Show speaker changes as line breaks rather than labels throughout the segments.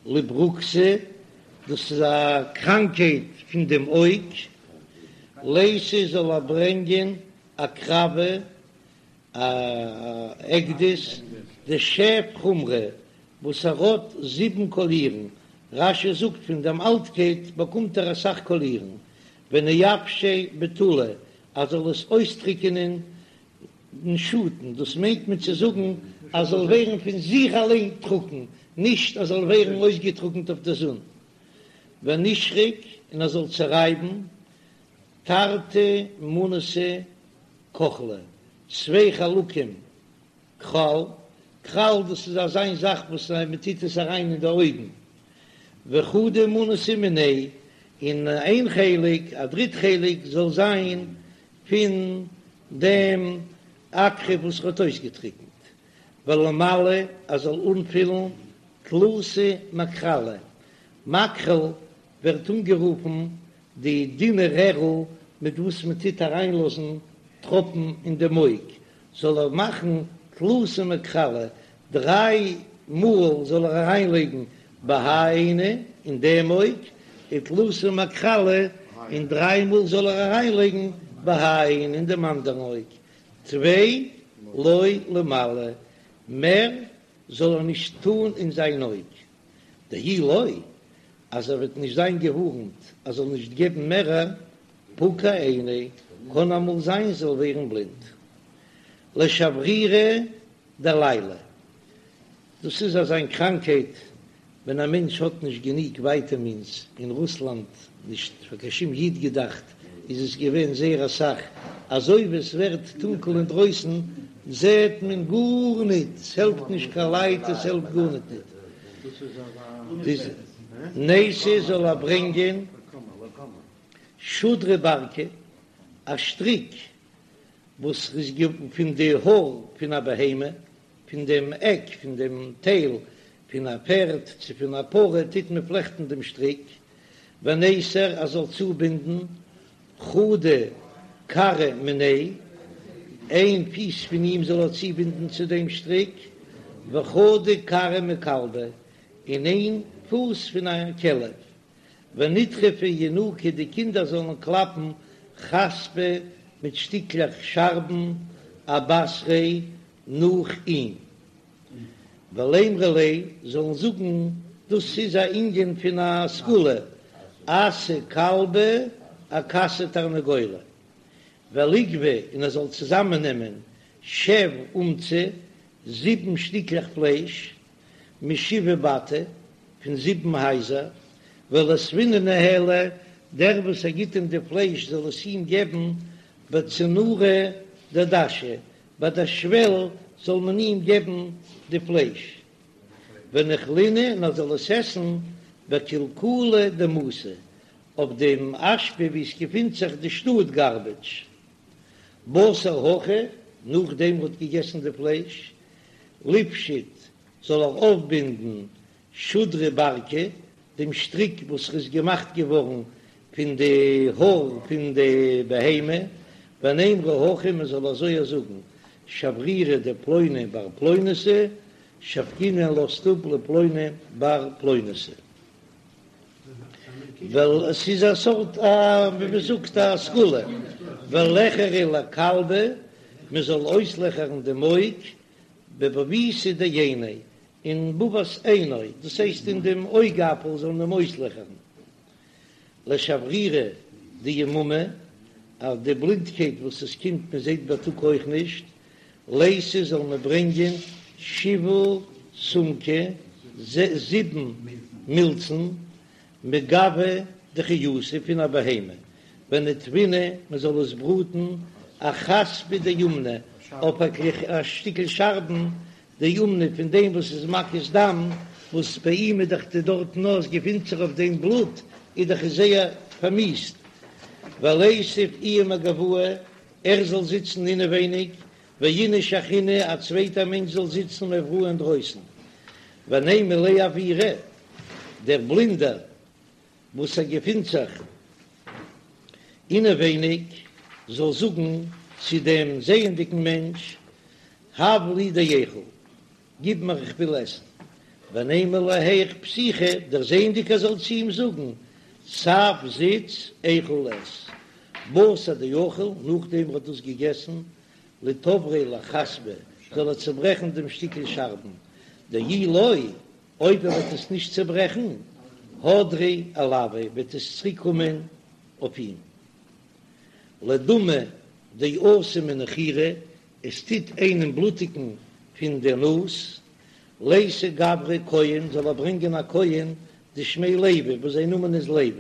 לברוקתא, דאס איז א קראנקהייט פון דעם אויג, ליתי זאל ער ברענגען עקרבא, א עקדיש דשב חומרי וואס ער האט זיבן קאלירן, רש"י זאגט פון דעם אלטקייט באקומט ער אסאך קאלירן, ונייבשיה בטולא ער זאל עס אויסטריקענען אין שאטן, דאס מיינט מען צו זאגן אז זאל ווערן פון זיך אליין טרוקן, נישט אז זאל ווערן אויסגעטרוקנט אויף דער זון, ונישרק און ער זאל צערייבן תרתי מנתא כוחלא, צוויי חלקים כחל, כחל דאס איז אזיין זאך וואס מען טוט עס אריין אין די אויגן, וחדא מנתא מיניה, און איין חלק, א דריט חלק, זאל זיין פון דעם עקרב וואס ער האט אויסגעטריקנט, ולימלא ער זאל אנפילן תלתא מכחלי, מכחל ווערט אנגערופן די דינע רערל מיט וואס מען טוט אריינלאזן טראפן אין דעם אויג, זאל ער מאכן תלתא מכחלי, דריי מאל זאל ער אריינלייגן בהאי עינא אין דעם אויג, ותלתא מכחלי, און דריי מאל זאל ער אריינלייגן בהאי עינא אין דעם אנדערן אויג, טפי לא לימלא, מער זאל ער נישט טאן אין זיין אויג, דאי לא, אז ער וועט נישט זיין געווארנט ער זאל נישט געבן מערער, פקע עיניה, קען אמאל זיין זאל ווערן בלינד. לשברירי דליליא, דאס איז אזיין קראנקהייט ווען א מענטש האט נישט גענוג ווייטעמינס, אין רוסלאנד, נישט פאר קיין שום איד געדאכט, איז עס געווען זייער אסאך, אזוי ווי עס ווערט טונקל אינדרויסן זעט מען גארניט, עס העלפט נישט קיין לייט, עס העלפט גארניט ניט. ניתי זאל ער ברענגען שודרא ברקא, א שטריק וואס איז פון די האר פון א בהמה, פון דעם עק פון דעם טייל פון א פערד צו פון א פרה טוט מען פלעכטן דעם שטריק, וניסר ער זאל צובינדן חדא כרעא מיניה, איין פיס פון אים זאל ער צובינדן צו דעם שטריק, וחדא כרעא מכלבא, און איין פוס פון א כלב, ונטרפו ינוקא די קינדער זאלן קלאפן חספא מיט שטיקלעך שארבן אבתריה נאך אים. ולימרו ליה זאלן זאגן דאס איז א ענין פון א סגולה, אסי כלבא אכסי תרנגולא, וליגבי און ער זאל צוזאמען נעמען שב אומצי זיבן שטיקלעך פלייש, משבעה בתי, פון זיבן הייזער, וליתבינהו ניהליה, דער וואס ער גיט אים די פלייש זאל עס אים געבן בצנורא דדשא, ביי דער שוועל זאל מען אים געבן די פלייש, וניכלינהו און ער זאל עס עסן בקלקולא דמתא, אויף דעם אשפה וואו עס געפינט זיך די שטאט גארבעדזש. בתר הכי, נאכדעם ער האט געגעסן די פלייש, ליפשוט זאל ער אויפבינדן שודרא ברקא, דעם שטריק וואס איז געמאכט געווארן פון די האר פון די בהמה, ונימרו הכי מען זאל אזוי זאגן, שברירא דפלוני בר פלוניתא, שבקינהו לאזט אפ לפלוני בר פלוניתא. ווייל עס איז א סארט א ווי מען זאגט א סגולה, וליחרו לכלבא, מען זאל אויסלעכערן דעם אויג, בבבותא דעיניה, אין בבת עינו, דאס הייסט אין דעם אויגאפל זאל מען אים אויסלעכערן. לשברירא דיממא, אז די בלינדקייט וואס עס קומט מען זעט בייטאג אויך נישט, ליתי זאל מען ברענגען שבעה סומקי, זיבן מילצן, מגווא דחיותא פון א בהמה, וניטוינהו מען זאל עס בראטן אחספא דאומנא אויף א שטיקל שארבן דאומנא פון דעם וואס איז מקיז דם, וואס ביי אים איז דאך די דארטן וואו עס געפינט זיך אויף דעם בלוט איז דאך עס זייער פארמיסט, וליתיב איהו מגואי ער זאל זיצן אינעווייניג, ואיניש אחרינא א צווייטער מענטש זאל זיצן מאבראי אינדרויסן, ונימא ליה עוירא דער בלינדער וואס ער געפינט זיך אינעווייניג זאל זאגן צו דעם זעענדיגן מענטש, הב לי דאיכול, גיב מיר איך וויל עסן. ונימא ליה היאך פתיחא, דערזעענדיג ער זאל צו אים זאגן, תב זיץ איכול עס, בתר דאכיל, נאכדעם ער האט דאס געגעסן, ליתבריה לחספא, זאל ער צעברעכן דעם שטיקל שארבן, דאי לא, אויב ער וועט עס נישט צעברעכן, הדרא עלויה, וועט עס צוריק קומען אויף אים. לדמא דאתי מנחירא, עס טוט איינעם בלוטיגן פון דער נאז, ליתי גברא כהן, זאל ער ברענגען א כהן דשמיה לוי, וואס זיין נאמען איז לוי,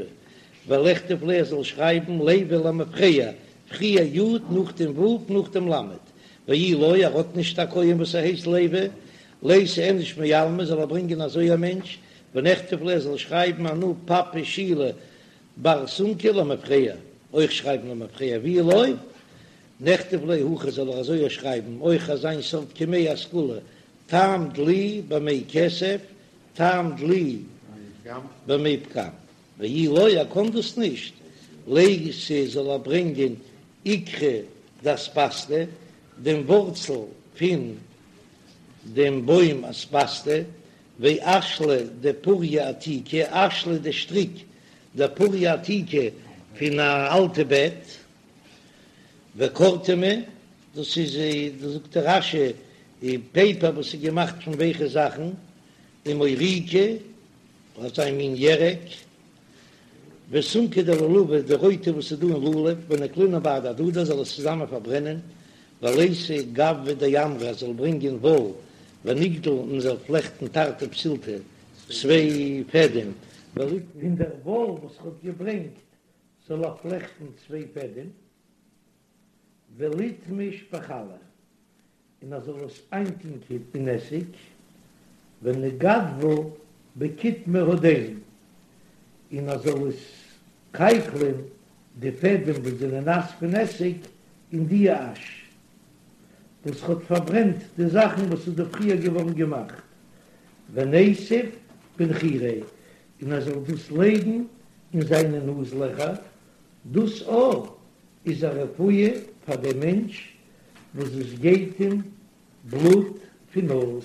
וליכתוב ליה ער זאל שרייבן לוי למפרע, פריער י' נאכדעם ו' נאכדעם ל', ואי לא, ער האט נישט א כהן וואס ער הייסט לוי, ליתי איניש מעלמא, זאל ער ברענגען אזוי א מענטש, ונכתוב ליה ער זאל שרייבן אנא פפא שילא בר סומקא למפרע, אויך שרייבן למפרע, ואי לא, נכתוב ליה הכי זאל ער אזוי שרייבן אויך אזיין סארט קמיה א סגולה, טעם דלי במי כסף, טעם דלי במי פגם, ואי לא ער קאן דאס נישט, ליתי זאל ער ברענגען עיקרא דאספסתא, דעם ווארצל פון דעם בוים אספסתא, ואשלא דפוריא עתיקא, אשלא די שטריק דפוריא עתיקא פון א אלטע בעט, וקורטמא, דאס איז זאגט דער רש"י פעיפער וואס איז געמאכט פון ווייכע זאכן, ומוריקא, אזא מין ירק, וסומקא דלולבא, די רויטע וואס איז דא אין לולב, ונקלינהו בהדי הדדי זאל עס צוזאמען פארברענען, וליתי גבבא דעמרא זאל ברענגען וואל, ונגדיל און זאל פלעכטן תרתי פתילתי צוויי פעדעם, פון דער וואל וואס ער האט געברענגט זאל ער פלעכטן צוויי פעדעם, וליתמש בחלא, און ער זאל עס איינטונקען אין עסיג, ונגדביה בקיטמא הדין, און ער זאל עס קייקלען די פעדעם וואס זענען נאס פון עסיג אין די אש וואס האט פארברענט די זאכן וואס איז דא פריער געווארן געמאכט, וניתיב בנחיריה, און ער זאל דאס לייגן אין זיינע נאז לעכער, דאס אויך איז א רפואה פאר דעם מענטש וואס עס גייט אים בלוט פון נאז.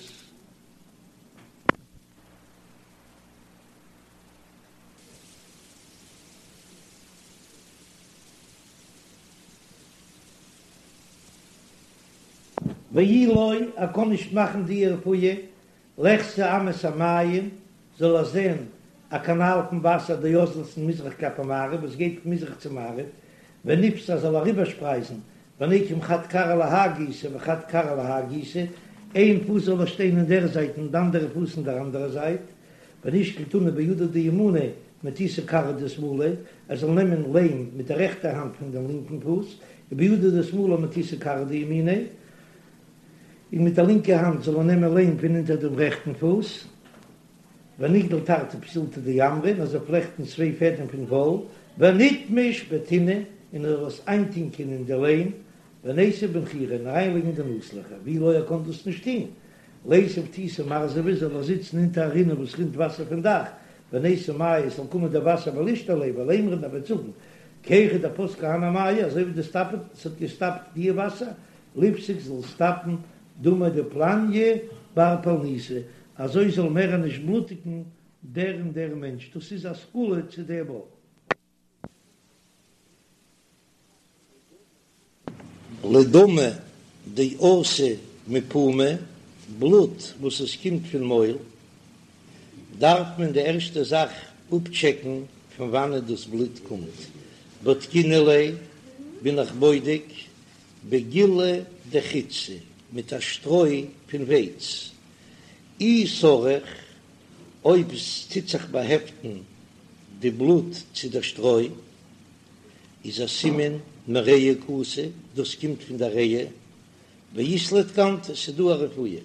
ואי לא, ער קען נישט מאכן די רפואה, ליחזי אמת המים, זאל ער זען א קאנאל פון וואסער דאזלת מזרח כלפי מערב וואס גייט פון מזרח צו מערב, וניפסר זאל אריבערשפרייזן, וניקום חד כרעא להאי גיסא וחד כרעא להאי גיסא, איין פוס זאל ער שטיין אין דער זייט און די אנדערע פוס אין דער אנדערע זייט, ונישקול טינא בידא דימיניה מתותא כרעא דשמאליה, ער זאל נעמען ליים מיט דער רעכטער האנט פון דעם לינקן פוס, ובידא דשמאליה מתותא כרעא דימיניה, און מיט דער לינקער האנט זאל ער נעמען ליים פון אונטער דעם רעכטן פוס, ונגדיל תרתי פתילתי דעמרא, און ער זאל פלעכטן צוויי פעדעם פון וואל, וניתמש בטינא, און ער זאל עס איינטונקען אין די ליים, וניתיב בנחיריה, און אריינלייגן אין די נאז-לעכער, ואי לא ער קען דאס נישט טון, ליתיב תיתא מרזבא, זאל ער זיצן אונטער א רינע וואס רינט וואסער פון דאך, וניתו מיא, עס זאל קומען דער וואסער ולישתי ליה, ולימר און ער וועט זאגן, כי היכי דפסקו הני מיא, אזוי ווי די סטאפעט, עס האט געסטאפט די וואסער, ליפסק זאל סטאפן דמא דפלניא בר פלניתא, אזוי זאל מער נישט בלוטיגן דער און דער מענטש, דאס איז א סגולה צו דעם אויך. לדמא דאתי מפומא, בלוט וואס עס קומט פון מויל, דארף מען די ערשטע זאך אפטשעקן פון וואנעט דאס בלוט קומט, בדקינן ליה בין איך בודק בגילי דחיטתא, מיט א שטרוי פון ווייץ, אי סריך, אויב עס טוט זיך באהעפטן די בלוט צו דער שטרוי, איז א סימן מריאה קאתי, דאס קומט פון דער ריאה, ואית ליה תקנתא, ס'איז דא א רפואה,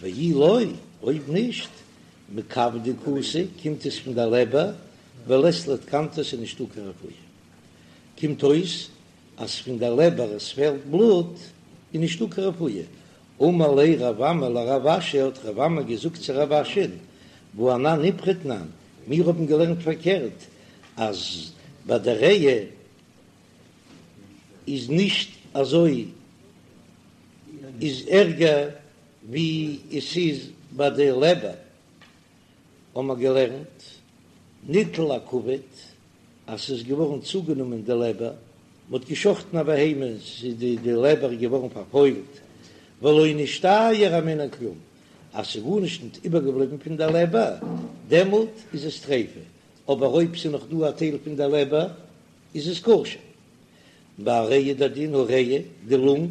ואי לא, אויב נישט, מכבדא קאתי, קומט עס פון דער לעבער, ולית ליה תקנתא, ס'איז נישטא קיין רפואה. קומט אויס אז פון דער לעבער עס פעלט בלוט איז נישטא קיין רפואה. אמר ליה רב אמי לרב אשי, האט רב אמי געזאגט צו רב אשי'ן, והא אנן איפכא תנן, מיר האבן געלערנט פארקערט, אז ביי דער ריאה איז נישט אזוי איז ערגער ווי עס איז ביי די לעבער. האבן מיר געלערנט, ניטל הכבד, אז ס'איז געווארן צוגענומען די לעבער, מ'האט געשחטן א בהמה, ס'איז די די לעבער געווארן פארפוילט, ולא נשתייר הימנה כלום, אז ס'איז גארנישט ניט איבערגעבליבן פון דער לעבער, דעמאלט איז עס טריפה, אבער אויב ס'איז נאך דא א טייל פון דער לעבער, איז עס כשר. ביי ריאה איז דער דין הריאה, די לונג,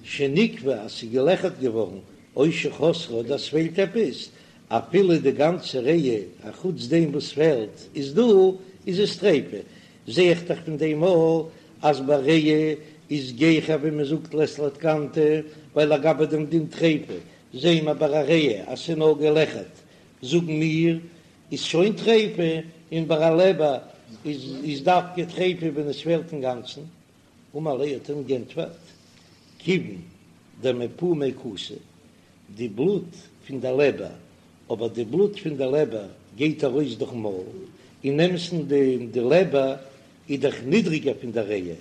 שניקבה אז ס'איז געלעכערט געווארן, או שחסרה אדער ס'פעלט עפעס, אפילו די גאנצע ריאה אחוץ דעם וואס פעלט איז דא, איז עס טריפה. זע איך דאך פון דעם אויך אז ביי ריאה איז גיכער ווי מ'זאגט לית לה תקנתא, ווייל לגבי דעם דין טריפה זעען מיר ביי א ריאה אז ס'איז נאר געלעכערט, זאגן מיר איז שוין טריפה, און ביי א לעבער איז דווקא טריפה ווען עס פעלט אינגאנצן. אמר ליה האט אים גענטפערט, כיוון דמפומיה קאתי, די בלוט פון די לעבער, אבער די בלוט פון די לעבער גייט ארויס דורכן מויל, אין אמת'ן די לעבער איז דאך נידריגער פון די ריאה,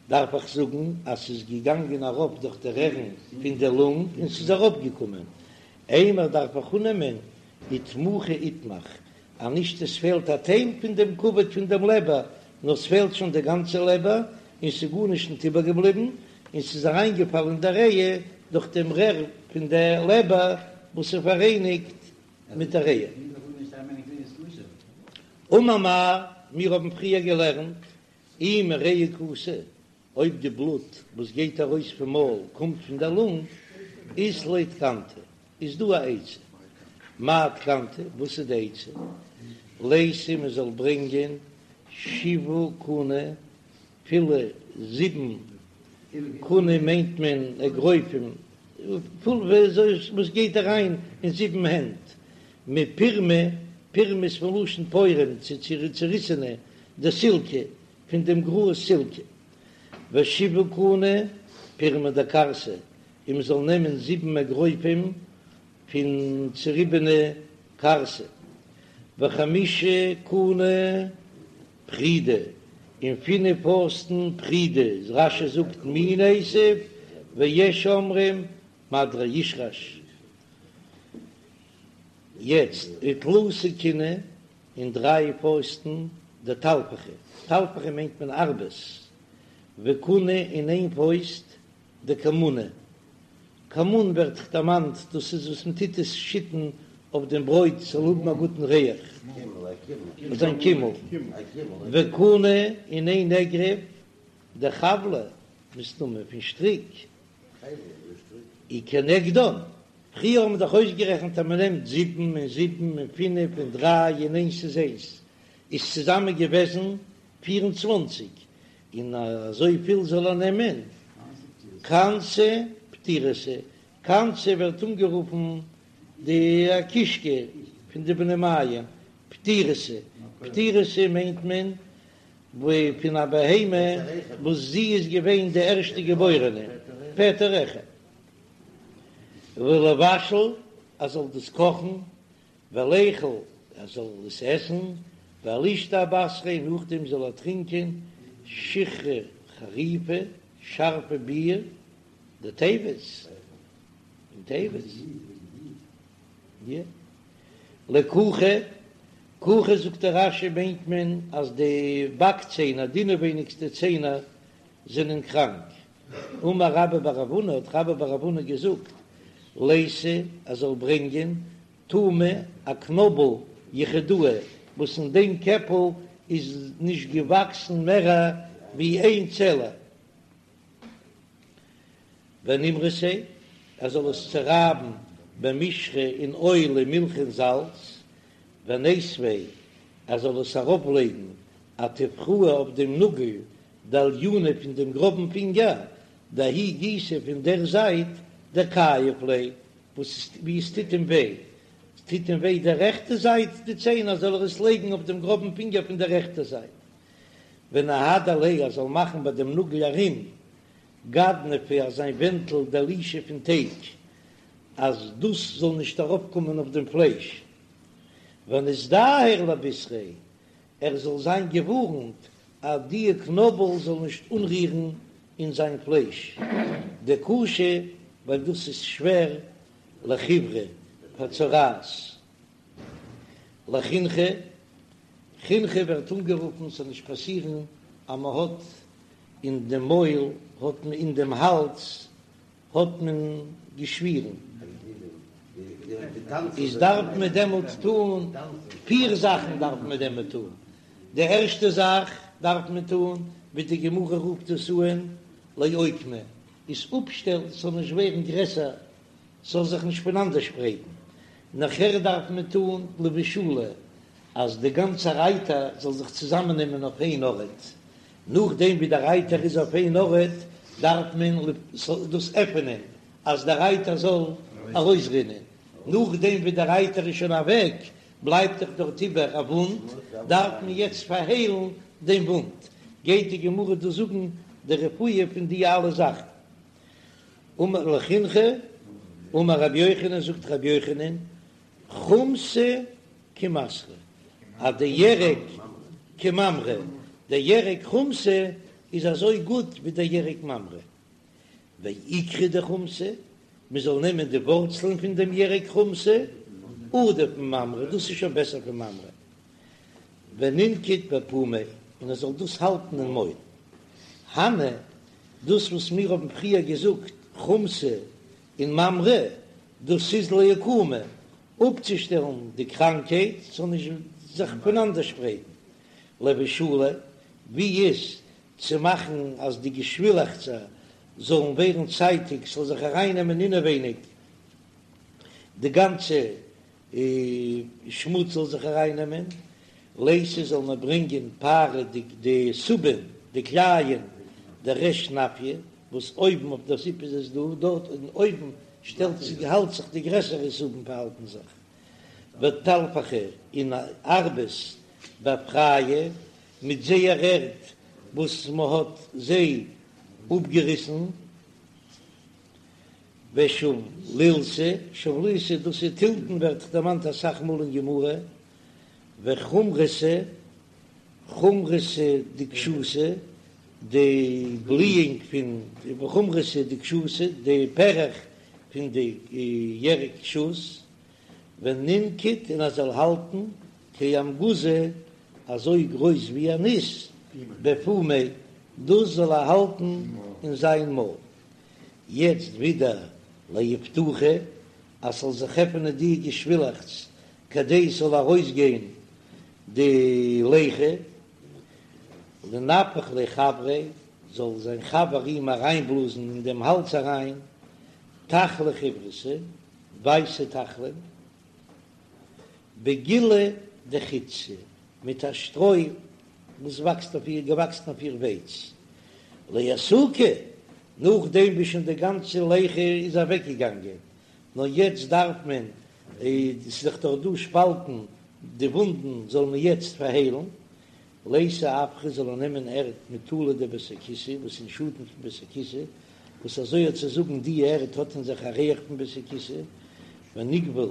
דארף איך זאגן אז ס'איז געגאנגען אראפ דורך די רערן פון די לונג און ס'איז אראפגעקומען, אימר דארף איך אננעמען איתמוחי איתמח, אז נישט עס פעלט א טייל פון דעם כבד פון דעם לעבער, נאר ס'פעלט שוין די גאנצע לעבער, און ס'איז גארנישט ניט איבערגעבליבן, און ס'איז אריינגעפאלן אין דער ריאה דורך דעם רער פון דער לעבער וואס איז פאראייניגט מיט דער ריאה. אמר מר, מיר האבן פריער געלערנט, אי מריאה קאתי, אויב די בלוט וואס גייט ארויס פון מויל קומט פון דער לונג, אית ליה תקנתא, איז דא א עצה. מאי תקנתא, וואס איז די עצה? לייתי מען זאל ברענגען שבעה כוני, פילע זיבן, כוני מיינט מען אגרופים, פול וואס גייט אריין אין זיבן הענט, מפירמא, פירמא איז פון לשון פורם, צוריסענע, דסילקא, פון דעם גראז סילקע, ושבעה כוני פירמא דכרסא, און מען זאל נעמען זיבן אגרופים פון צוריבענע כרסא, וחמשה כוני פרידי, און פינף פויסטן פרידי, רש"י זאגט מין עשב, ויש אומרים מדרישרש. יעצט ותלתא כיני און דריי פויסטן דטלפחי, טלפחי מיינט מען ארבעס, וכונא און איין פויסט דכמונא, כמון ווערט דערמאנט, דאס איז וואס מען טוט עס שיטן אויף דעם ברויט ס'זאל האבן א גוטן ריח, זיין קימל, וכונא און איין אגרוף דחבלא, מסתמא פון שטריק, וכנגדן, פריער האבן מיר דאך אויסגערעכנט אז מען נעמט זיבן און זיבן און פינף און דריי און איינס איז איינס, איז צוזאמען געוועזן 24, און אזוי פיל זאל ער נעמען כנתא פטירתא, כנתא ווערט אנגערופן די קישקע פון די בני מעיים, פטירתא, פטירתא מיינט מען פון א בהמה וואס זי איז געווען די ערשטע געבוירענע, פטר רחם. ולבשל, ער זאל דאס קאכן, וליכול, ער זאל עס עסן, ולישתי אבתריה, נאכדעם זאל ער טרינקען שיכרא חריפא, שארפע ביר, דטבת, פון טבת, יא. לכוכא, כוכא זאגט דער רש"י מיינט מען אז די באק ציינער, די אינעווייניגסטע ציינער זענען קראנק, אמר רבה בר רב הונא, האט רבה בר רב הונא געזאגט, לייתי ער זאל ברענגען טומי א קנאבל יחידאה, וואס אין דעם קעפל איז נישט געוואקסן מער ווי איין צעלע, ונימרסיה, ער זאל עס צורייבן במישחא אין אויל ומילחא און זאלץ, וניתביה, ער זאל עס ארויפלייגן אטופרא אויף דעם נאגל דאליונא פון דעם גראבן פינגער, דההוא גיסא פון דער זייט דכייב ליה, וואס ווי עס טוט אים וויי, עס טוט אים וויי די רעכטע זייט די ציינער זאל ער עס לייגן אויף דעם גראבן פינגער פון דער רעכטער זייט, ונהדר ליה ער זאל מאכן ביי דעם נאגל ארום גדנפא אזא ווענטל דלישא פון טייג, אז דאס זאל נישט ארויפקומען אויף דעם פלייש, וניזדהר לבישריה, ער זאל זיין געווארנט אז די קנאבל זאל נישט אנרירן אין זיין פלייש, דקשי ווייל דאס איז שווער לחיורא פאר צרעת. לחינכא, חינכא ווערט אנגערופן ס'זאל נישט פאסירן אז מ'האט אין דעם מויל האט מען אין דעם האלז האט מען געשווירן, איז דארף מען דעמאלט טון פיר זאכן דארף מען דעמאלט טון, די ערשטע זאך דארף מען טון ווי די גמרא רופט עס אן לאוקמא, איז אפשטעלן ס'זאל נישט ווערן גרעסער, ס'זאל זיך נישט פונאנדערשפרייטן, נאכער דארף מען טון לבושלה אז די גאנצע אייטער זאל זיך צוזאמעננעמען אויף איין ארט, נאכדעם ווי דער אייטער איז אויף איין ארט דארף מען דאס עפענען אז דער אייטער זאל ארויסרינען, נאכדעם ווי דער אייטער איז שוין אוועק בלייבט דאך דארט איבער א וואונד, דארף מען יעצט פארהיילן דעם וואונד, גייט די גמרא דא זאגן די רפואה פון די אלע זאכן. אמר לחינכא, אמר רבי יוחנן, זאגט רבי יוחנן, חומתא כמסרא, אז די ירק כממרא, די ירק חומתא איז אזוי גוט ווי די ירק ממרא. ועיקרא דחומתא, מען זאל נעמען די ווארצלען פון דעם ירק חומתא, עדיף מממרא, דאס איז שוין בעסער פון ממרא. ונינקוט בפומיה, און ער זאל דאס האלטן אין מויל. הני, דאס וואס מיר האבן פריער געזאגט חומתא און ממרא, דאס איז לאוקמא, אפצושטעלן די קראנקהייט ס'זאל נישט זיך פונאנדערשפרייטן. לבושלה, ווי איז צו מאכן אז די געשווילעכצער זאלן ווערן צייטיג, ס'זאל זיך ארייננעמען אינעווייניג די גאנצע שמוץ זאל זיך ארייננעמען, לייתי זאל מען ברענגען פארע די די סובין די קלייען דריש נפיא וואס אויבן אויף דער זיפ איז עס דא דארט און אויבן שטעלט זיך האלט זיך די גרעסערע סובין פארהאלטן זיך וטלפחי און ארבעס באפרייהו מיט זייער ערד וואס מ'האט זיי אפגעריסן. ושבלילתא, שבלילתא דאס איז תלתן ווערט דערמאנט אסאך מאל אין גמרא, וחומרתא, חומרתא דקשותא, די בליאונג פון, וחומרתא דקשותא, די פערעך פון די ירק שות, ונינקוט און ער זאל האלטן כאמגוזא אזוי גרויס ווי א ניס, בפומיה, דאס זאל ער האלטן אין זיין מויל. יעצט ווידער לאיפתוחי אז ס'זאל זיך עפענען די געשווילעכץ כדי ס'זאל ארויסגיין די ליחה, לנפח ליה חבריה, זאל זיין חבר אים אריינבלאזן אין דעם האלז אריין, תחלי חיוורתא, ווייסע תחלים, בגילי דחיטתא, מיט א שטרוי וואס וואקסט אויף איר, געוואקסן אויף איר ווייץ, לאסוקי, נאכדעם ווי שוין די גאנצע ליחה איז אוועקגעגאנגען, נאר יעצט דארף מען, ס'איז דאך דאך דא שפאלטן, די וואונדן זאל מען יעצט פארהיילן, לייתי עפרא זאל ער נעמען ערד מטולא דבית הכסא, וואס אין שאטן פון בית הכסא, וואס אזוי האט צו זאגן די ערד האט אין זיך א ריח פון בית הכסא, ונגבול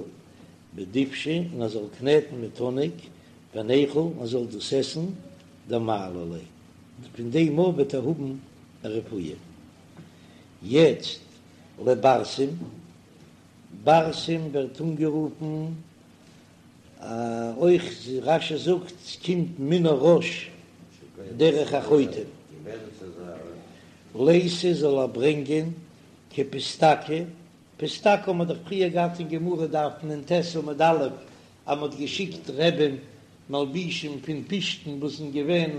בדובשא און ער זאל קנעטן מיט האניג, וניכול און ער זאל דאס עסן, דמעלי ליה, פון דעם מאל וועט ער האבן א רפואה. יעצט לברסם, ברסם ווערט אנגערופן אויך רש"י זאגט ס'קומט מן הראש דרך החוטם, לייתי זאל ער ברענגען כפיסתקא, פיסתקא האט מען דאך פריער געהאט אין גמרא דף נ"ט עמוד א' אז מ'האט געשיקט רבי'ן מלבישים פון פשתן וואס זענען געווען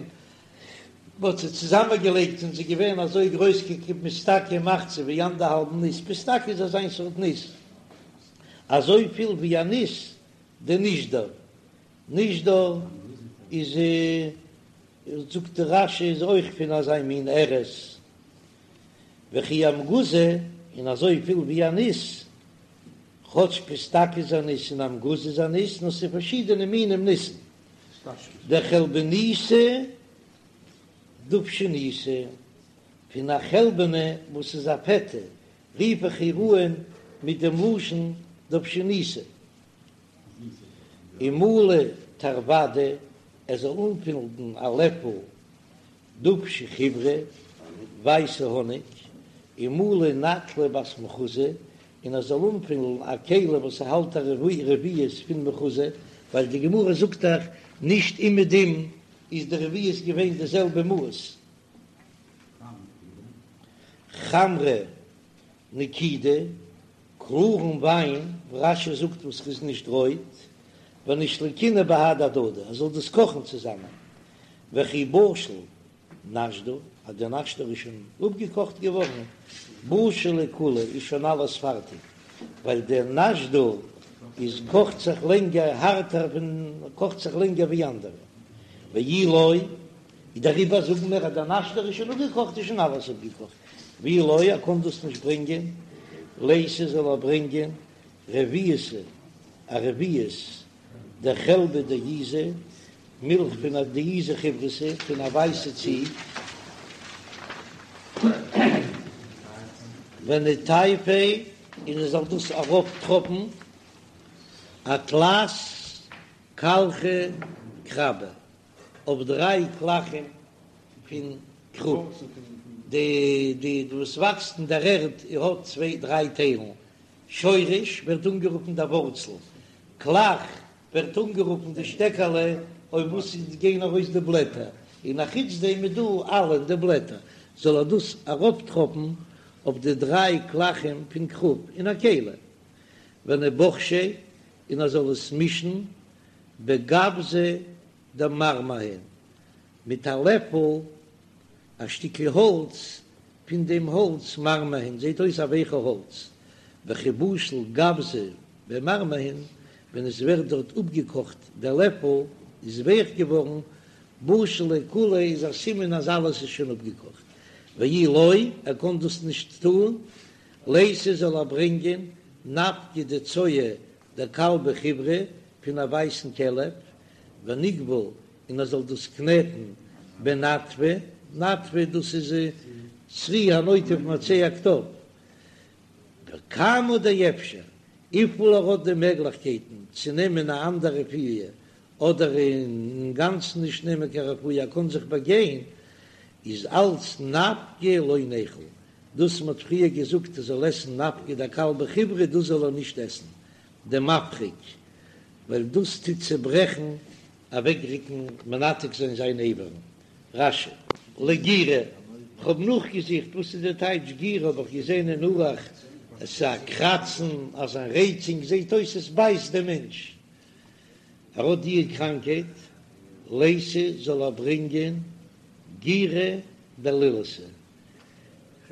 מ'האט זיי צוזאמען געלייגט און זיי געווען אזוי גרויס כפיסתקא ומחצה ווי אנדערהאלבן ניס, פיסתקא איז אזיין סארט ניס אזויפיל ווי א ניס דנישדור, נישדור איז זאגט די רש"י איז אויך פון אזא מין ארז, וכי אמגוזא און אזוי פיל ווי א ניס, כאטש פיסתקא איז א ניס און אמגוזא איז א ניס, נאר ס'איז פארשידענע מינים ניסן, דחלבניתא דובשניתא, פון א חלבנה וואס איז א פעטע, רוף איך איר אן מיט דעם לשון דובשניתא. ומלי תרוודא, ער זאל אנפילן א לעפל דובשא חיורא, ווייסע האניג, ומלי נטלא בת מחוזא, און ער זאל אנפילן א כלי וואס האלט א רביעית פון מחוזא. ווייל די גמרא זאגט דאך נישט אומעדום איז די רביעית געווען די זעלבע מאס. חמרא נקידא, קלארן וויין, רש"י זאגט וואס איז נישט רויט, ונישלקינהו בהדי הדדי, ער זאל דאס קאכן צוזאמען, וכי בשיל נשדור, אז דער נשדור איז שוין אפגעקאכט געווארן, בשיל ליה כוליה איז שוין אלעס פארטיג, ווייל דער נשדור איז קאכט זיך לענגער הארטער פון קאכט זיך לענגער ווי אנדערע, ואי לא, דעריבער זאגן מיר אז דער נשדור איז שוין אפגעקאכט איז שוין אלעס אפגעקאכט, ואי לא, ער קען דאס נישט ברענגען, ליתי זאל ער ברענגען רביעתא א רביעית דחלבא דעיזא, מילך פון א דעיזא חיורתא, פון א ווייסע ציג, וניטייפיה, און ער זאל דאס ארויפטראפן אתלת קלחי כרבא, אויף דריי קלחים פון כרוב, די די וואס וואקסט אין דער ערד האט צוויי דריי טיילן, שורש ווערט אנגערופן דער ווארצל, קלח ווערט אנגערופן די שטעקעלע אויף וואס עס גייען ארויס די בלעטער, און א חוץ דעם איז דא עלין די בלעטער, זאל ער דאס ארויפטראפן אויף די דריי קלחים פון כרוב אין א כלי, וניבחשיה, און ער זאל עס מישן בגווזא דמרמהין, מיט א לעפל א שטיקל האלץ פון דעם האלץ מרמהין, זעט אויס א ווייכע האלץ, וכי בשיל גווזא במרמהין, ווען עס ווערט דארט אפגעקאכט דער לעפל איז ווייך געווארן, בשיל ליה כוליה איז א סימן אז אלעס איז שוין אפגעקאכט, ואי לא, ער קען דאס נישט טון, ליתי זאל ער ברענגען נפקא דצואה דכלבא חיורא פון א ווייסן כלב, וניגבול און ער זאל דאס קנעטן בנטפא, נטפא דאס איז צרי הנוטף מעצי הקטב, וכמה דאפשר, וויפיל ער האט די מעגליכקייטן צו נעמען א אנדער רפואה, אדער אינגאנצן נישט נעמען קיין רפואה, ער קען זיך באגיין, איז אלץ נפקא לא ניכול, דאס מ'האט פריער געזאגט ער זאל עסן נפקא דכלבא חיורא דאס זאל ער נישט עסן, דמפריק, ווייל דאס טוט צעברעכן אוועקרוקן מנתק זיין זיין אברים. רש"י. לגירא, כ'האב נאכגעזוכט וואס איז די טייטש גירא האב איך געזען אין ערוך עס איז א קראצן אזא רייצונג זעט אויס עס בייסט דעם מענטש ער האט די קראנקייט ליתי זאל ער ברענגען גירא דלילתא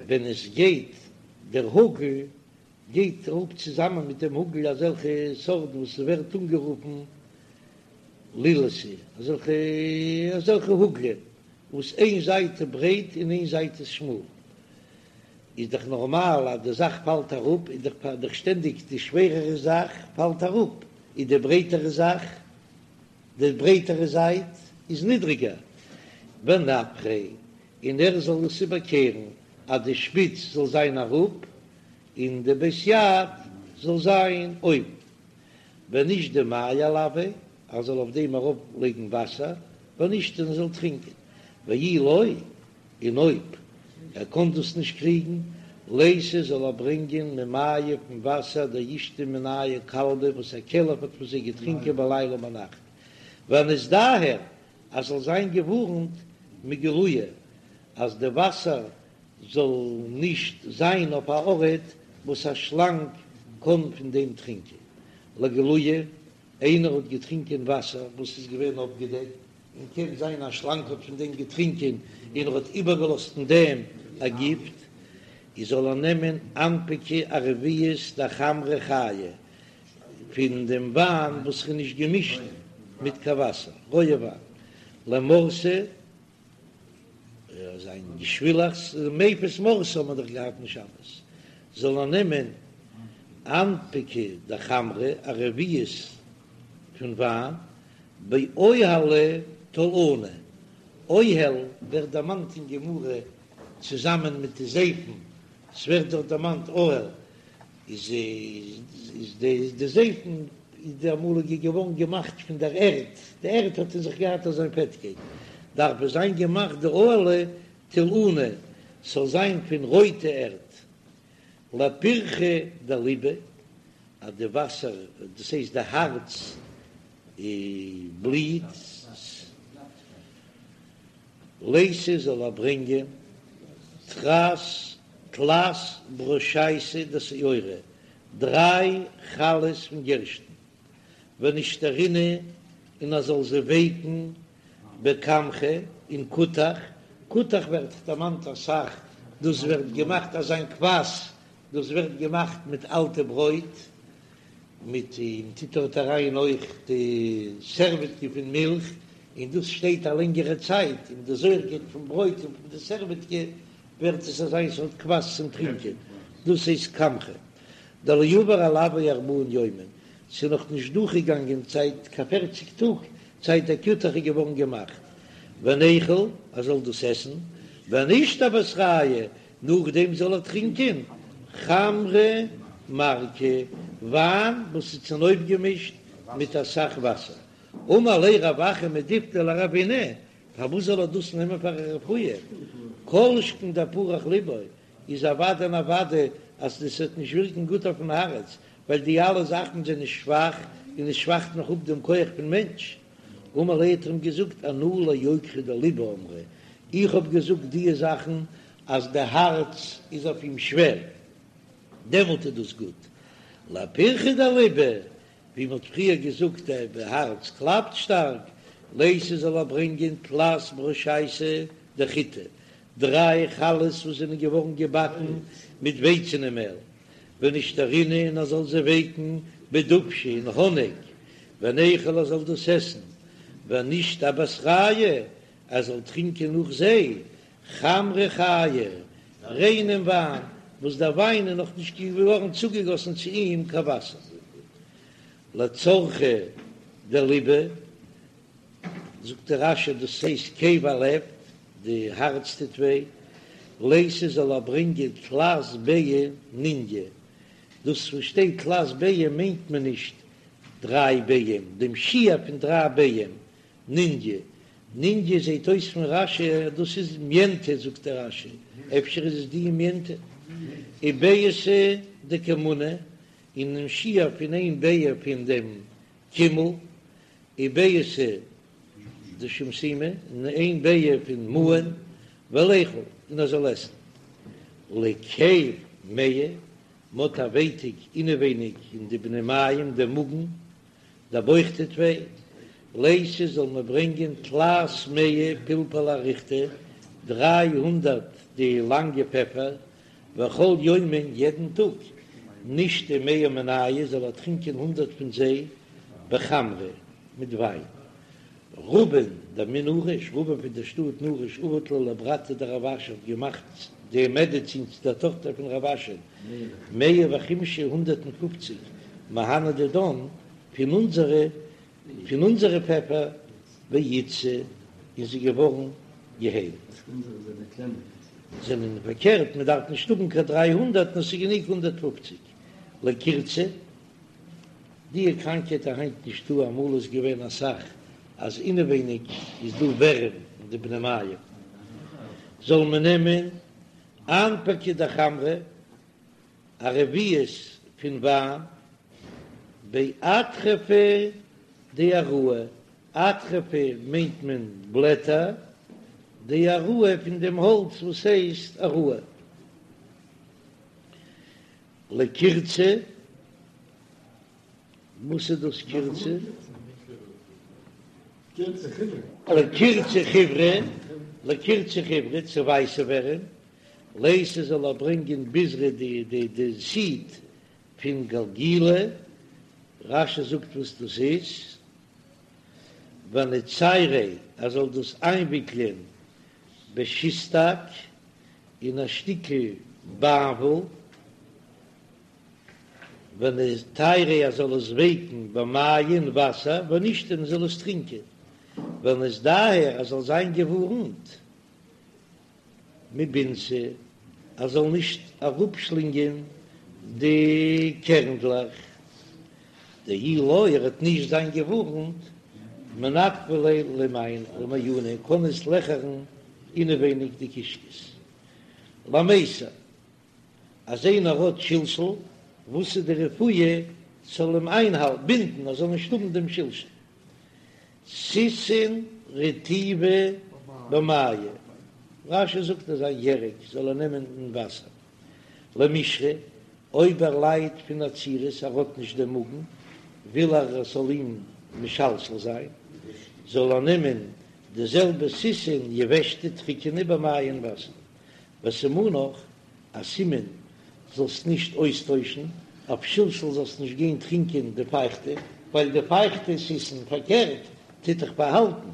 ווען עס גייט דער האגל גייט אראפ צוזאמען מיט דעם האגל אזעלכע סארטן וואס ווערט אנגערופן לילתא, אזעלכע אזעלכע האגלען וואס איין זייט איז ברייט און איין זייט איז שמאל, איז דאך נארמאל אז די זאך פאלט אראפ, איז דאך דאך שטענדיג די שווערערע זאך פאלט אראפ, איז די ברייטערע זאך, די ברייטערע זייט איז נידריגער, ונפחיה, און ער זאל עס איבערקערן אז די שפיץ זאל זיין אראפ און די בית יד זאל זיין אויבן, ונישדי מיא עילויה, ער זאל אויף דעם ארויף לייגן וואסער, ונישתי און ער זאל טרינקען, ואי לא, און אויב ער קען דאס נישט קריגן, ליתי זאל ער ברענגען ממיא פון וואסער דאישתי מינייהו כלבא וואס א כלב האט פון זיי געטרינקען בליליא ביינאכט, וניזדהר אז זאל זיין געווארנט מגילויא אז די וואסער זאל נישט זיין אויף א ארט וואס א שלאנג קען פון דעם טרינקען. לגלויי, איינער האט געטרינקען וואסער וואס איז געווען אפגעדעקט, און קען זיין א שלאנג האט פון דעם געטרינקען און ער האט איבערגעלאזט אין דעם א גיפט, איז זאל ער נעמען אנפקא א רביעית דחמרא חייא פון דעם וויין וואס איז נישט געמישט מיט קיין וואסער, רויע וויין, למרתא. זיין געשווילעכץ, מפיס מרתא האט מען דאך געהאט אין שבת, זאל ער נעמען אנפקא דחמרא א רביעית פון וויין, באוהלא תולענא, אוהל ווערט דערמאנט אין גמרא צוזאמען מיט די זייפן, ס'ווערט דארט דערמאנט אוהל, איז איז די די זייפן איז די אמאליגע געווארן געמאכט פון דער ערד, די ערד האט אין זיך געהאט אזוין פעטקייט, דארף עס זיין געמאכט די אוהלא תולענא ס'זאל זיין פון רויטע ערד, לפירחא דליבא, אז די וואסער, דאס הייסט די הארץ. בליט. לייתי זאל ער ברענגען תרס תלת ברושייתא דשעורא, דריי חלות פון גערשטן, ונישתרינהו און ער זאל זיי ווייקן בכמכא אין כותח, כותח ווערט דערמאנט אסאך, דאס ווערט געמאכט אזא קוואס, דאס ווערט געמאכט מיט אלטע ברויט, מיט און טוט דארט אריין אויך די סערוועטקע פון מילך, און דאס שטייט א לענגערע צייט, און די זויערקייט פון ברויט און פון די סערוועטקע ווערט עס אזא סארט קוואס צום טרינקען, דאס הייסט כמכא. דלא עבר עלויה ארבעין יומין, ס'איז נאך נישט דורכגעגאנגען צייט קיין פערציג טאג זייט דער כותח איז געווארן געמאכט, וניכול ער זאל דאס עסן, ונישתי אבתרייהו, נאכדעם זאל ער טרינקען חמרא מרקא, וויין וואס איז צונויפגעמישט מיט אסאך וואסער. אמר ליה רב אחא מדיפתי לרבינא, פארוואס זאל ער דאס נעמען פאר א רפואה? כל שכן דפרח ליבא, איז אוודאי און אוודאי אז דאס וועט נישט ווירקן גוט אויפן הארץ, ווייל די אלע זאכן זענען שוואך און עס שוואכט נאך אפ דעם כח פון מענטש. אמר ליה האט ער אים געזאגט אנא ליקרא דליבא אמרי, איך האב געזאגט דיע זאכן אז די הארץ איז אויף אים שווער, דעמאלט איז דאס גוט. לפירחא דליבא, ווי מען האט פריער געזאגט די הארץ קלאפט שטארק, לייתי זאל ער ברענגען תלת ברושייתא דחיטי, דריי חלות וואס זענען געווארן געבאקן מיט ווייצענע מעל, ונישתרינהו און ער זאל זיי ווייקן בדובשא אין האניג, וניכול ער זאל דאס עסן, ונישתי אבתרייהו ער זאל טרינקען נאך זיי חמרא חייא, ריינעם וויין, וואס דער וויין איז נאך נישט געווארן צוגעגאסן צו אים קיין וואסער. לצרחא דליבא, זאגט דער רש"י דאס הייסט כאב הלב, די הארץ טוט וויי, לייתי זאל ער ברענגען תלת ביעי ניניא, דאס וואס שטייט תלת ביעי מיינט מען נישט דריי ביעים, דעם שיעור פון דריי ביעים, ניניא, ניניא זעהט אויס פון רש"י אז דאס איז מיענטע, זאגט דער רש"י אפשר איז עס די מיענטע, וביעתא דכמונא, און דעם שיעור פון איין ביעה פון דעם קימל, וביעתא דשומשמי, און איין ביעה פון מאן, וליכול, און ער זאל עסן. לכאב מעי, מ'האט א ווייטיק אינעווייניג אין די בני מעיים, דעם מאגן, דער בויך טוט וויי, לייתי זאל מען ברענגען תלת מאה פלפלי אריכתא, 300 די לאנגע פעפער, וכל יומא יעדן טאג, נישתי מאה מינייהו זאל ער טרינקען הונדרעט פון זיי בחמרא מיט וויין. רבין דמן נרש, רבין פון דער שטאט נרש עבד לה לברתיה דרב אשי האט געמאכט די מעדעצין צו דער טאכטער פון רב אשי, מאה וחמשין הונדרעט און פופציג מהני דידן פון אונזערע פון אונזערע פעפער ואיתסי און זי געווארן געהיילט. זענען פארקערט מען דארף נישט האבן קיין 300 נאר ס'איז גענוג 150 לקירצא. די קראנקייט איז היינט נישטא אמאל איז געווען אסאך אז אינעווייניג איז דא ווערים אין די בני מעיים זאל מען נעמען אנפקא דחמרא א רביעית פון וויין באטרפא דעראי, אטרפא מיינט מען בלעטער, דעראי פון דעם האלץ וואס הייסט עראי. לקירצא, וואס איז דאס קירצא? לקירצא חיורא, לקירצא חיורא, צו ווייסע ווערים, לייתי זאל ער ברענגען ביזרא די די די סיד פון גלגילא, רש"י זאגט וואס דאס איז, וניצייריה ער זאל דאס איינוויקלען בשיסטאק אין א שטיקל באנוול, וניטייריה ער זאל עס ווייקן במיא אין וואסער, ונישתי און זאל עס טרינקען, וניזדהר ער זאל זיין געווארנט מבינתא ער זאל נישט אראפשלינגען די קערנדלעך, דאי לא ער וועט נישט זיין געווארנט, מנפחא ליה למעיינא קען עס לעכערן אינעווייניג די קישקעס. למיסר אז איינער האט שלשול, וואס איז די רפואה ס'זאל אים איינהאלטן, בינדן ער זאל נישט האבן דעם שלשול. סיסין רטיבא במיא, רש"י זאגט אזא ירק זאל ער נעמען אין וואסער. למישרי, אויב ער ליידט פון עצירות, ער האט נישט דעם מאגן, וויל ער עס זאל אים משלשל זיין, זאל ער נעמען די זעלבע סיסין יבשתא טריקענע במיא אין וואסער. וסימנך, א סימן זאלסט נישט אויסטוישן, אויף שלשול זאלסט נישט גיין טרינקען די פייכטע, ווייל די פייכטע סיסין פארקערט טוט דיך באהאלטן,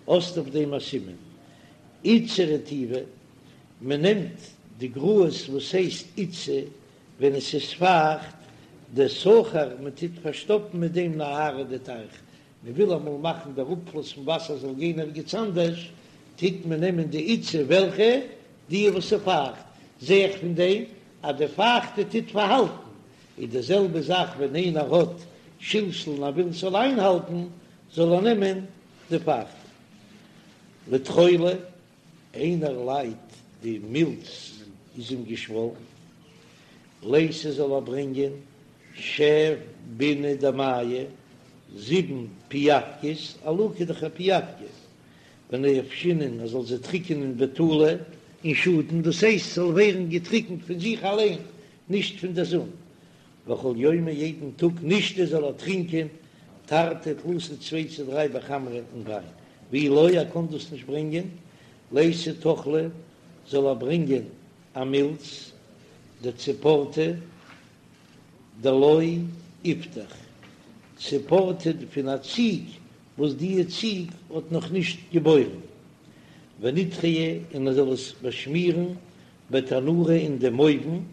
האסט אויף דעם א סימן. עיטסא רטיבא, מען נעמט די גראז וואס הייסט עיטסא ווען עס איז פייכט, דסכר מען טוט פארשטאפן מיט דעם נהרא די טייך, מען וויל אמאל מאכן דער אפפלוס פון וואסער זאל גיין ערגעץ אנדערש, טוט מען נעמען די עיטסא וועלכע? די וואס איז פייכט, זע איך פון דעם אז די פייכטע טוט פארהאלטן, איז די זעלבע זאך ווען איינער האט שלשול און ער וויל ס'זאל איינהאלטן, זאל ער נעמען די פייכטע. לטחולא, איינער ליידט די מילץ איז אים געשוואלן, לייתי זאל ער ברענגען שב ביני דמיא, זיבן פיאווקעס, עלוקה איז דאך א פיאווקע, ונייבשינהו ער זאל זיי טריקענען בטולא אין שאטן, דאס הייסט ס'זאל ווערן געטריקנט פון זיך אליין, נישט פון דער זון, וכל יומא יעדן טאג נישתי זאל ער טרינקען תרתי תלתא צוויי צו דריי בחמרא אין וויין, ואי לא ער קען דאס נישט ברענגען, לייתי טחלא זאל ער ברענגען א מילץ דציפורתא דלא איפתח, ציפורתא פון א ציג וואס דיע ציג האט נאך נישט געבוירן, ונידחייה און ער זאל עס באשמירן בתנורא אין דעם אויוון,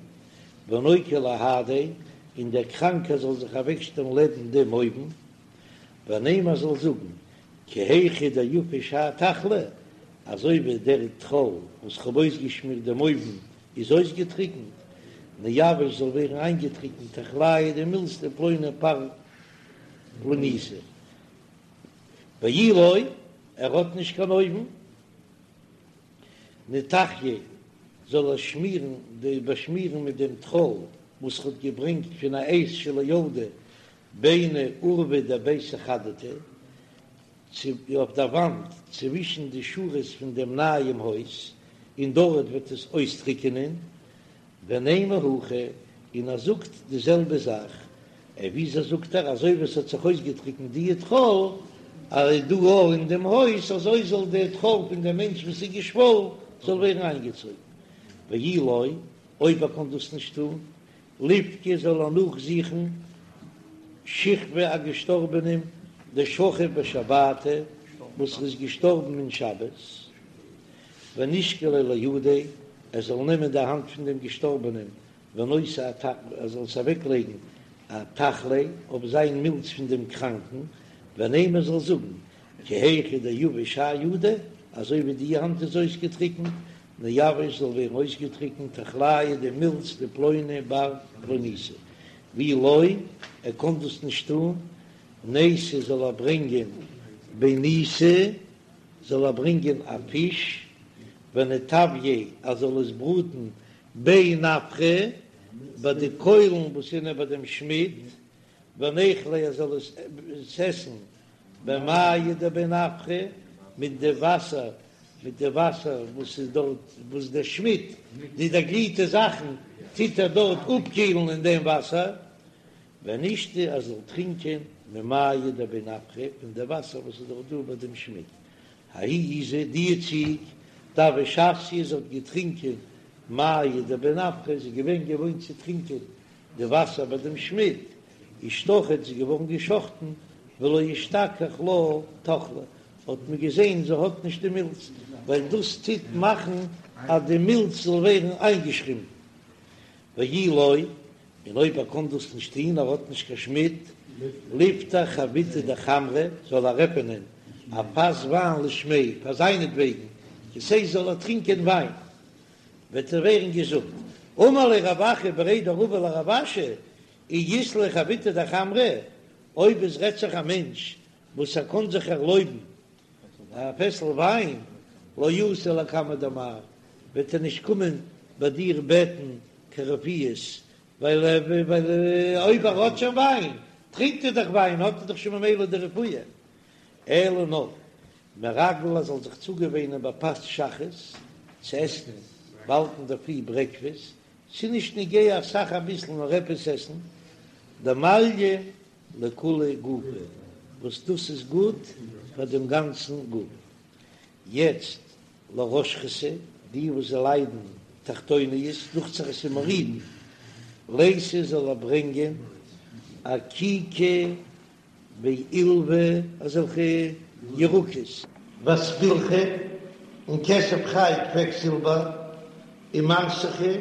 ונוקי להדיה, און דער קראנקער זאל זיך אוועקשטעלן לעבן דעם אויוון, ונימא זאל זאגן, כי היכי דיפיש האי טחלא, אזוי ווי דער טחול וואס כ'האב אויסגעשמירט דעם אויוון איז אויסגעטריקנט, ניוושא זאל ווערן איינגעטריקנט טחליא די מילץ דפלוני בר פלוניתא, ואי לא, ער האט נישט קיין אויוון. ניטחייה זאל ער שמירן די באשמירן מיט דעם טחול וואס ער האט געברענגט פון א עז שלא ילדה ביני אורווי דביתא חדתא צו אויף דער וואנט צווישן די שורות פון דעם נייעם הויז און דארט וועט עס אויסטריקענען ונימא הכי, און ער זאגט די זעלבע זאך, ע וויאזוי זאגט ער, אזוי ווי עס האט זיך אויסגעטריקנט די טחול אז דא אויך אין דעם הויז, אזוי זאל די טחול פון דעם מענטש וואס איז געשוואלן זאל ווערן איינגעצויגן, ואי לא, אויב ער קען דאס נישט טון, ליבקי זאל ער נאכזוכן שכבא א געשטארבענעם דשכיב בשבתא וואס איז געשטארבן אין שבת. ונישקליה לידיה, ער זאל נעמען די האנט פון דעם געשטארבענעם, ונותי ער זאל עס אוועקלייגן אטחליה אויף זיין מילץ פון דעם קראנקן, ונימא זאל זאגן, כי היכי דיביש האי ידא, אזוי ווי די האנט איז אויסגעטריקנט, ניוושא זאל ווערן אויסגעטריקנט טחליא די מילץ דפלוני בר פלוניתא, ואי לא, ער קען דאס נישט טון, נייתי זאל ער ברענגען ביניתא, זאל ער ברענגען א פיש, וניטוייה ער זאל עס בראטן בי נפחא ביי די קוילן וואס זענען ביי דעם שמיד, וניכליה ער זאל עס עסן במיא דבי נפחא מיט די וואסער מיט די וואסער וואס איז דארט וואס דער שמיד די דערגליטע זאכן טוט ער דארט אפקילן אין דעם וואסער, ונישתי ער זאל טרינקען ממיא דבי נפחא פון די וואסער וואס איז דאך דא ביי דעם שמיד, ההיא עיזא די ציג דהוה שתיא זי האט געטרינקען מיא דבי נפחא זי איז געווען געוואוינט צו טרינקען די וואסער ביי דעם שמיד, אישתחיט זי איז געווארן געשחטן ולא אשתכח לה טחלא האט מען געזען זי האט נישט די מילץ ווייל דאס טוט מאכן אז די מילץ זאל ווערן איינגעשרימפן ואי לא, און אויב ער קען דאס נישט טוהן, ער האט נישט קיין שמיד, ליפתח חביתא דחמרא, זאל ער עפענען א פאס וויין לשמיה, פאר זיינעטוועגן, דאס הייסט זאל ער טרינקען וויין, וועט ער ווערן געזונט. אמר ליה רב אחא בריה דרבא לרב אשי, אי אית ליה חביתא דחמרא, אויב עס רעדט זיך א מענטש וואס ער קען זיך ערלויבן א פעסל וויין, לא אתי לקמיה דמר, וועט ער נישט קומען ביי דיר בעטן קיין רפואות, ווייל אויב ער האט שוין וויין, טרינקט ער דאך וויין, האט ער דאך שוין ממילא די רפואה. אלא נאר מרגל ער זאל זיך צוגעוואינען בפת שחרית צו עסן באלד אינדערפרי ברעקפעסט, ס'איז נישט נוגע אסאך אביסל נאר עפעס עסן, דמעליא לכוליה גופא, וואס דאס איז גוט פאר דעם גאנצן גוף. יעצט לרשכתא, די וואס זיי ליידן תחתוניות, דוכט זיך עס איז מורידין, לייתי זאל ער ברענגען אקיקא ועילווא אזעלכע ירקות. ואספילכא, און כסף חי קוועקזילבער, ומרתכא,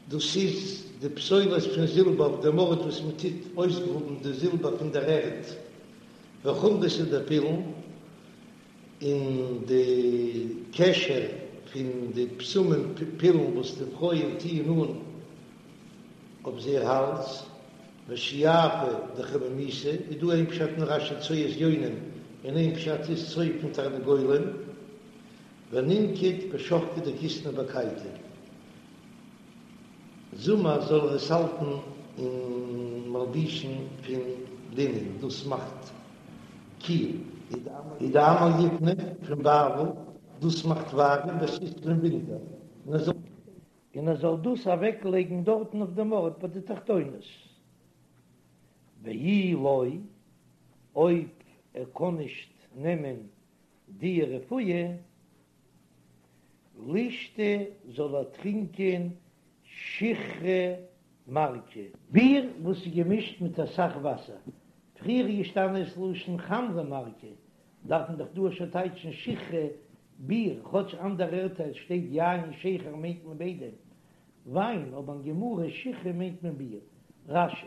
דאס איז די פסולת פון זילבער אויף דעם ארט וואס מען טוט אויסגראבן די זילבער פון דער ערד, וחומרתא דפילון, און די קשר פון די בשמים פילון וואס די פרויען טוען אן אויף זייער האלז, ושיאפא דחמימתא, איז דא איין פשט אין רש"י צואת יונים און איין פשט איז צואה פון תרנגולים, וננקוט בשחקא דכיתנא בקייטא, זומער זאל ער עס האלטן אין מלבושים פון לינען, דאס מאכט קיל. ודעמר יפנא פון בבל, דאס מאכט ווארעם בסיתוא אין ווינטער, און ער זאל. און ער זאל דאס אוועק לייגן דארטן אויף דעם ארט ביי די תחתונות, ואי לא, אויב ער קען נישט נעמען די רפואה, לישתי זאל ער טרינקען שיכרא מרקא. ביר וואס איז געמישט מיט אסאך וואסער, פריער איז געשטאנען ס'לשון חמרא מרקא, דארף מען דאך דא שוין טייטשן שיכרא ביר, כאטש אנדערע ערטער שטייט יין שכר מיינט מען ביידע וויין, אבער אין גמרא שיכרא מיינט מען ביר. רש"י.